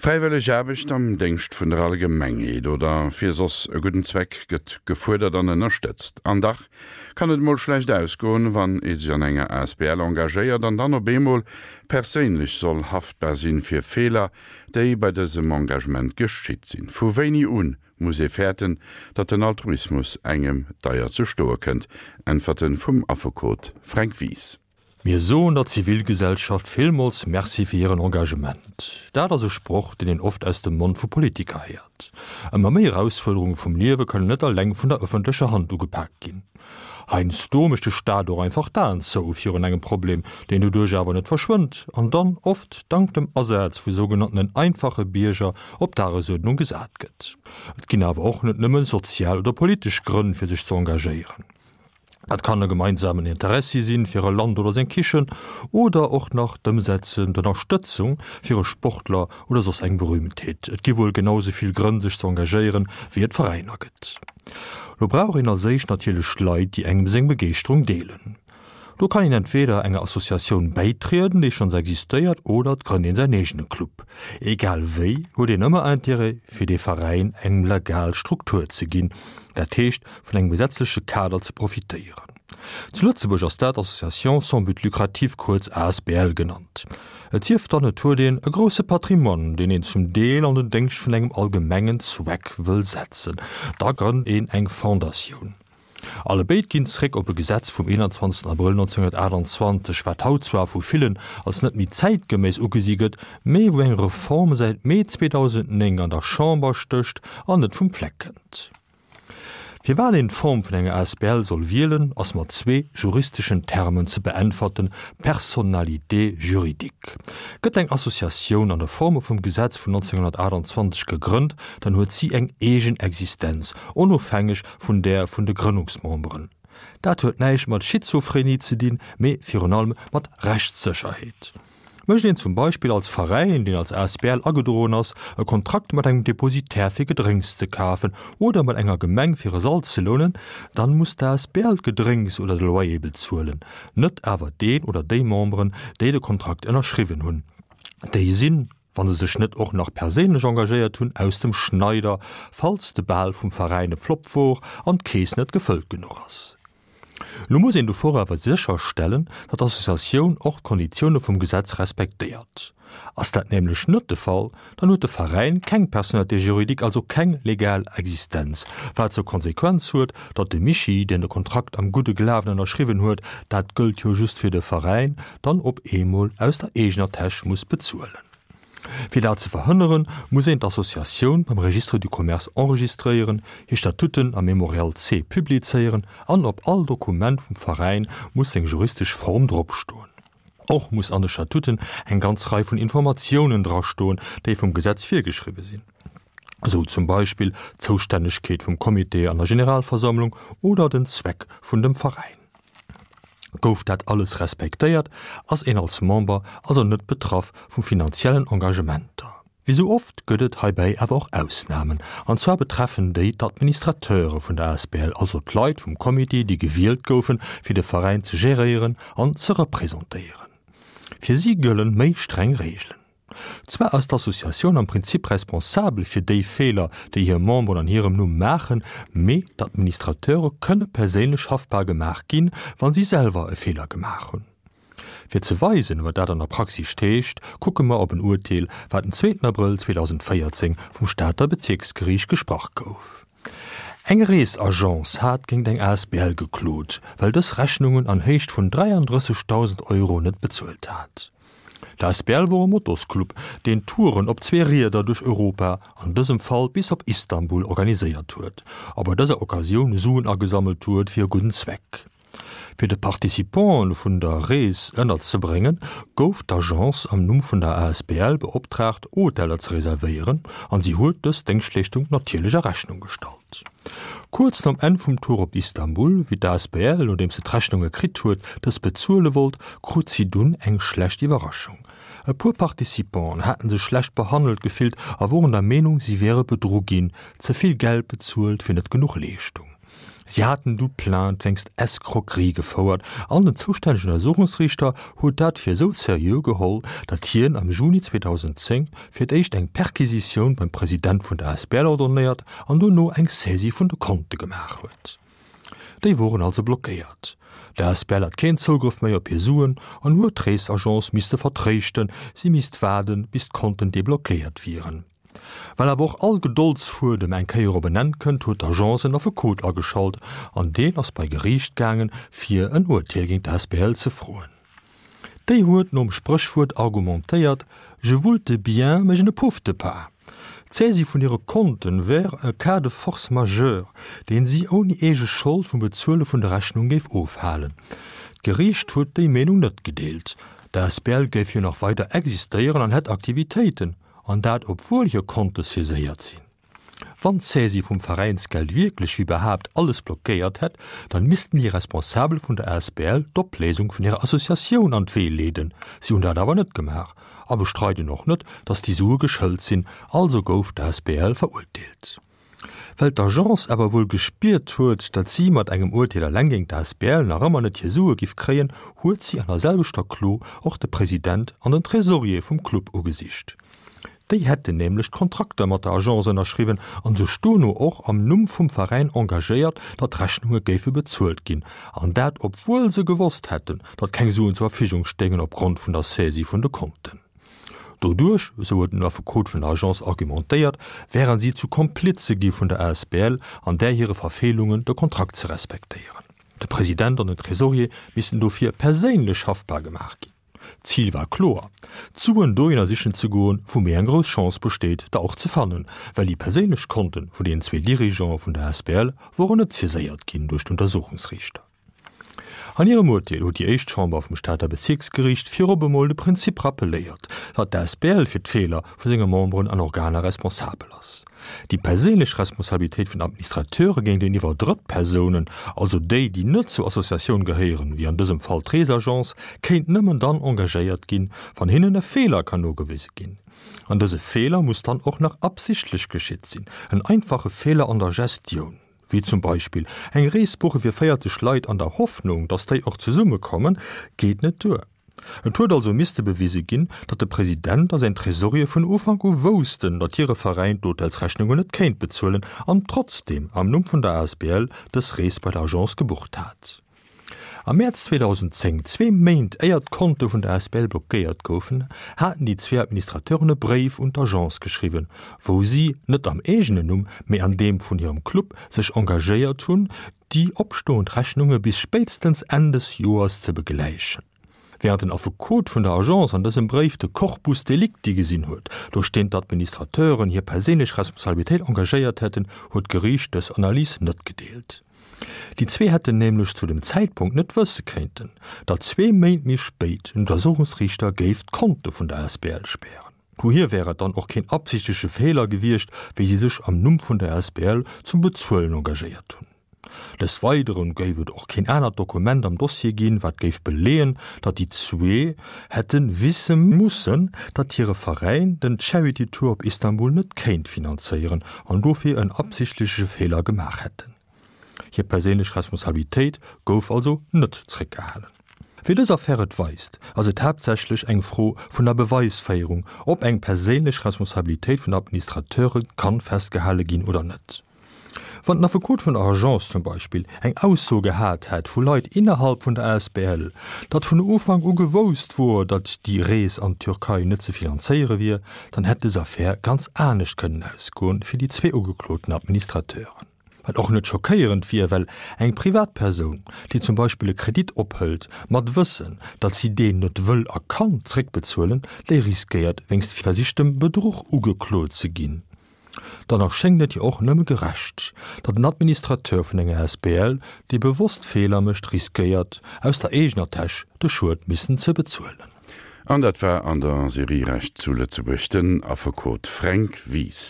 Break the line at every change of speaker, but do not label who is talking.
Fräiwëlleg Aarbecht am Déngscht vun der Allgemengheet oder fir soss e gudden Zweck gëtt gefuerdert an ënnerstëtzt. An dach kann et mol schlecht ausgoen, wann ee sech an enger asbl engagéiert an dann op eemol perséinlech soll haftbar sinn fir Feeler, déi bei dësem Engagement geschitt sinn. Vu wéini un muss ee fäerten, datt den Altruismus engem deier ze stoe kënnt? Äntwerte vum Affekot Fränk Wies.
Mir soen der Zivilgesellschaft villmools Merci fir hiren Engagement. Dat ass e Sproch, deen een oft aus dem Mond vu Politiker héiert. Ëmmer méi Erausfuerderunge vum Liewe kënnen net eleng vun der ëffentlecher Hand ugepaakt ginn. Heiansdo mécht de Staat och einfach d'Aen zou virun engem Problem, deen doduerch awer net verschwënnt an dann, oft dank dem Asaz vu sougenanntenen einfache Bierger, op d'Dagesuerdnung gesat gëtt. Et ginn awer och net nëmme sozial oder politesch Grënn fir sech ze engagéieren. Dat kann e gemeinsamen Interessi sinn fir e Land oder seng Kichen oder och nach d'Ëmsetzen, d'Ënnerstëtzung fir e Sportler oder soss eng Berühmtheet. Et gi wuel genau sou vill Grënn sech ze engagéieren, wéi et Veräiner gëtt. Lo brauch een als éischt natierlech Leit, déi engem seng Begeeschterung deelen. Do kann een entweder enger Associatioun bäitrieden, déi schonns existéiert, oder et grënnt een säin eegene Club. Egal wéi huet een ëmmer Intérêt, fir dee Veräin eng legal Struktur ze ginn, dat heescht vun engem gesetzleche Kader ze profitéieren. Zu Lëtzebuerg ass dat Association sans but lucratif, kuerz asbl genannt. Et sief dann, et huet een e grousse Patrimoine, deen een zum Deel an den Déngscht vun engem allgemengen Zweck wëll setzen, da grënnt een eng Fondatioun. Allebéid ginn zréck op e Gesetz vum 21 Abrëll 1928, wat haut zwar vu villen als net méi zäitgeméiss ugesi gëtt, mee wou eng Reform säit Mee 2009 an der Chamber stécht an net vum Fleck kënnt. Firwat een d'Form vun enger asbl soll wielen, ass mat zwee juristeschen Termen ze beäntwerten, Personnalité juridique. Gëtt eng Associatioun an der Forme vum Gesetz vun 1928 gegrënnt, dann huet si eng eegen Existenz, onofhängeg vun där vun de Grënnungsmemberen. Dat huet näischt mat Schizophrenie ze dinn, mee virun allem mat Rechtssécherheet. Mécht een zum Beispill als Veräin, deen als asbl agedroen ass, e Kontrakt mat engem Depositaire fir Gedrénks ze kafen oder mat enger Gemeng fir e Sall ze lounen, dann muss d'asbl d'Gedrénks oder de Loyer bezuelen, net awer deen oder déi Memberen, déi de Kontrakt ënnerschriwwen hunn. Déi sinn, wa se sech net och nach perséinlech engagéiert hunn, aus dem Schneider, falls de Bal vum Veräin e Flopp wor an d'Keess net gefëllt genuch ass. Lo muss een dovor awer sécherstellen, datt d'Associatioun och d'Konditioune vum Gesetz respektéiert. Ass dat nämlech net de Fall, dann huet de Veräin keng Personnalité juridique, also keng legal Existenz, wat zur Konsequenz huet, datt de Mischi, deen de Kontrakt am gudde Glawen ënnerschriwwen huet, dat gëllt jo just fir de Veräin, dann op eemol aus der eegener Täsch muss bezuelen. Fir dat ze verhënneren, muss een d'Associatioun beim Registre du commerce enregistréieren, hir Statuten am Mémorial C publizéieren an op all Dokument vum Veräin muss seng juristesch Form dropstoen. Och muss an de Statuten eng ganz Rei vun Informatiounen drastoen, déi vum Gesetz virgeschriwwe sinn, esou zum Beispill d'Zoustännegkeet vum Comité an der Generalversammlung oder den Zweck vun dem Veräin. Gouf dat alles respektéiert, ass een als Member also net betraff vu finanziellen Engagementer. Wéi sou oft gëtt et heibäi awer och Ausnamen, an zwar betreffen déi d'Administrateure vun der asbl, also d'Leit vum Comité, déi gewielt goufen, fir de Veräin ze geréieren an ze representéieren. Fir si gëllen méi streng Reegelen. Zwar ass d'Associatioun am Prinzip responsabel fir déi Feeler, déi hir Memberen an hirem Numm maachen, mee d'Administrateure kënne perséinlech haftbar gemaach ginn, wa si selwer e Feeler gemaach hunn. Fir ze weisen, wat dat an der Praxis heescht, kucke mer op en Urteel, wat den zweeten Abrëll 2014 vum Stater Bezierksgeriicht gesprach gouf. Eng Reesagence hat géint eng asbl geklot, well dës Rechnungen an Héicht vun 33.000 Euro net bezuelt hat. D'asbl wor e Motosclub, deen Touren op zwee Rieder duerch Europa, an dësem Fall bis op Istanbul, organiséiert huet a bei dëser Occasioun Suen agesammelt huet fir e gudden Zweck. Fir de Participanten vun der Rees ënnerzebréngen, gouf d'Agence am Numm vun der asbl beoptraagt, Hoteller ze reservéieren, an si huet dës Déngschtleeschtung natierlech a Rechnung gestallt. Kuerz nom Enn vum Tour op Istanbul, wéi d'asbl, nodeems se d'Rechnunge kritt huet, dës bezuele wollt, krut si dunn eng schlecht Iwwerraschung. E puer Participanten haten sech schlecht behandelt gefillt a woren der Meenung, si wiere bedru ginn, ze vill Geld bezuelt fir net genuch Leeschtung. Si haten du Plainte wéinst Escroquerie gefouert an den zoustännegen Untersuchungsriichter huet dat fir esou seriö geholl, datt hien am Juni 2010 fir d'éischt eng Perquisitioun beim President vun der Asbl ordonnéiert an dono eng Saisie vun de Konte gemaach huet. Déi woren also blockéiert. D'Asbl hat keen Zougrëff méi op hir Suen an huet d'Reesagence misste vertréischten, si misst waarden, bis d'Konten deblockéiert wieren. Well awer och all Gedoldsfuedem eng Kéier op en Enn kënnt, huet d'Agence en Affekot ageschalt an deen ass bei Geriicht gaangen, fir en Urteel géint d'Asbl ze froen. Déi huet nom Spréchwuert argumentéiert, Je voulte bien, mais je ne poufte pas. D'Saisie vun hire Konten wär e Cas de force majeure, deen si ouni eege Schold vum Bezuele vun der Rechnung géif ofhalen. D'Geriicht huet déi Meenung net gedeelt. D'Asbl géif jo nach weider existéieren an hätt Aktivitéiten, an dat obwuel hir Konte saiséiert sinn. Wann d'Saisie vum Veräinsgeld wierklech wéi behaapt alles blockéiert hätt, dann missten déi Responsabel vun der asbl d'Opléisung vun hirer Associatioun an d'Wee leeden. Si hunn dat awer net gemaach a bestreiden och net, datt déi Sue geschëlt sinn. Also gouf d'asbl verurteelt. Well d'Agence awer wuel gespiert huet, datt si mat engem Urteel eleng géint d'asbl nach ëmmer net hir Sue giff kréien, huet si an der selwechter Klo och de President an den Tresorier vum Club ugesicht. Déi hätten nämlech d'Kontrakter mat der Agence ënnerschriwwen an sech dono och am Numm vum Veräin engagéiert, datt d'Rechnunge géife bezuelt ginn. An dat obwuel se gewosst hätten, datt keng Suen zur Verfügung stéingen opgrond vun der Saisie vun de Konten. Doduerch, esou huet den Affekot vun der Agence argumentéiert, wären si zu Komplize gi vun der asbl an där hire Verfeelungen, de Kontrakt ze respektéieren. De President an den Tresorier missten dofir perséinlech haftbar gemaach ginn. D'Zil war kloer, d'Suen dohinner sichen ze goen, wou méi eng grouss Chance besteet, der och ze fannen, well déi perséinlech Konten vun deenen zwee Dirigeante vun der asbl woren net saiséiert ginn duerch d'Untersuchungsriichter. An hirem Urteel huet déi éischt Chamber vum Stater Bezierksgeriicht virop emol de Prinzip rappeléiert, datt d'asbl fir d'Feeler vu senge Memberen an Organer responsabel ass. Déi perséinlech Responsabilitéit vun Administrateure géinteniwwer Drëttpersounen, also déi, déi net zur Associatioun gehéieren, wéi an dësem Fall d'Reesagence, kéint nëmmen dann engagéiert ginn, wann hinnen e Feeler kann nogewise ginn. An dëse Feeler muss dann och nach absichtlech geschitt sinn, en einfache Feeler an der Gestioun. Wéi zum Beispill eng Rees buche fir 40 Leit an der Hoffnung, datt déi och zesumme kommen, geet net duer. Et huet also misste bewise ginn, datt de President a säin Tresorier vun Ufank u woussten, datt hire Veräin d'Hotelsrechnungen net kéint bezuelen an trotzdeem am Numm vun der asbl dës Rees bei der Agence gebucht hat. Am Mäerz 2010, zwee Méint éier d'Konte vun der asbl blockéiert goufen, haten déi zwee Administrateuren e Bréif un d'Agence geschriwwen, wou si, net am eegenen Numm, mee an deem vun hirem Club, sech engagéiert hunn, déi opstoend Rechnunge bis spéitstens Enn des Joers ze begläichen. Wärend den Affekot vun der Agence an dësem Bréif de Corpus delicti gesinn huet, duerch deen d'Administrateuren hir perséinlech Responsabilitéit engagéiert hätten, huet d'Geriicht dës Analys net gedeelt. Déi zwee hätten nämlech zu dem Zäitpunkt net wësse kéinten, datt zwee Méint méi spéit en Untersuchungsriichter géif d'Konte vun der asbl spären. Dohier wär et dann och keen absichtleche Feeler gewiescht, wéi si sech am Numm vun der asbl zum Bezuelen engagéiert hunn. Des Weidere géif et och keen anert Dokument am Dossier ginn, wat géif beleeën, datt déi zwee hätte wisse mussen, datt hire Veräin den Charity Tour op Istanbul net kéint finanzéieren an dofir en absichtleche Feeler gemaach hätten. Hir perséinlech Responsabilitéit gouf also net zréckgehalen. Wéi dës Affär et weist, ass et haaptsächlech eng Fro vun der Beweisféierung, ob eng perséinlech Responsabilitéit vun Administrateure kann festgehale ginn oder net. Wann den Affekot vun der Agence zum Beispill eng Ausso gehat hätt vu Leit innerhalb vun der asbl, datt vun Ufank u gewousst wor, datt déi Rees an d'Türkei net ze finanzéiere wier, dann hätt dës Affär ganz anescht kënnen ausgoen fir déi zwee ugekloten Administrateuren. Wat och net schockéierend wier, well eng Privatpersoun, déi zum Beispill e Kredit ophëlt, mat Wëssen, datt si deen net wëll a kann zréckbezuelen, déi riskéiert wéinst versichtem Bedruch ugeklot ze ginn. Dann erschéngt et jo och nëmme gerecht, datt en Administrateur vun enger asbl, dee bewosst Feeler mécht, riskéiert, aus der eegener Täsch de Schued missen ze bezuelen.
An dat war an der Serie Recht zu Lëtzebuerg den Affekot Fränk Wies.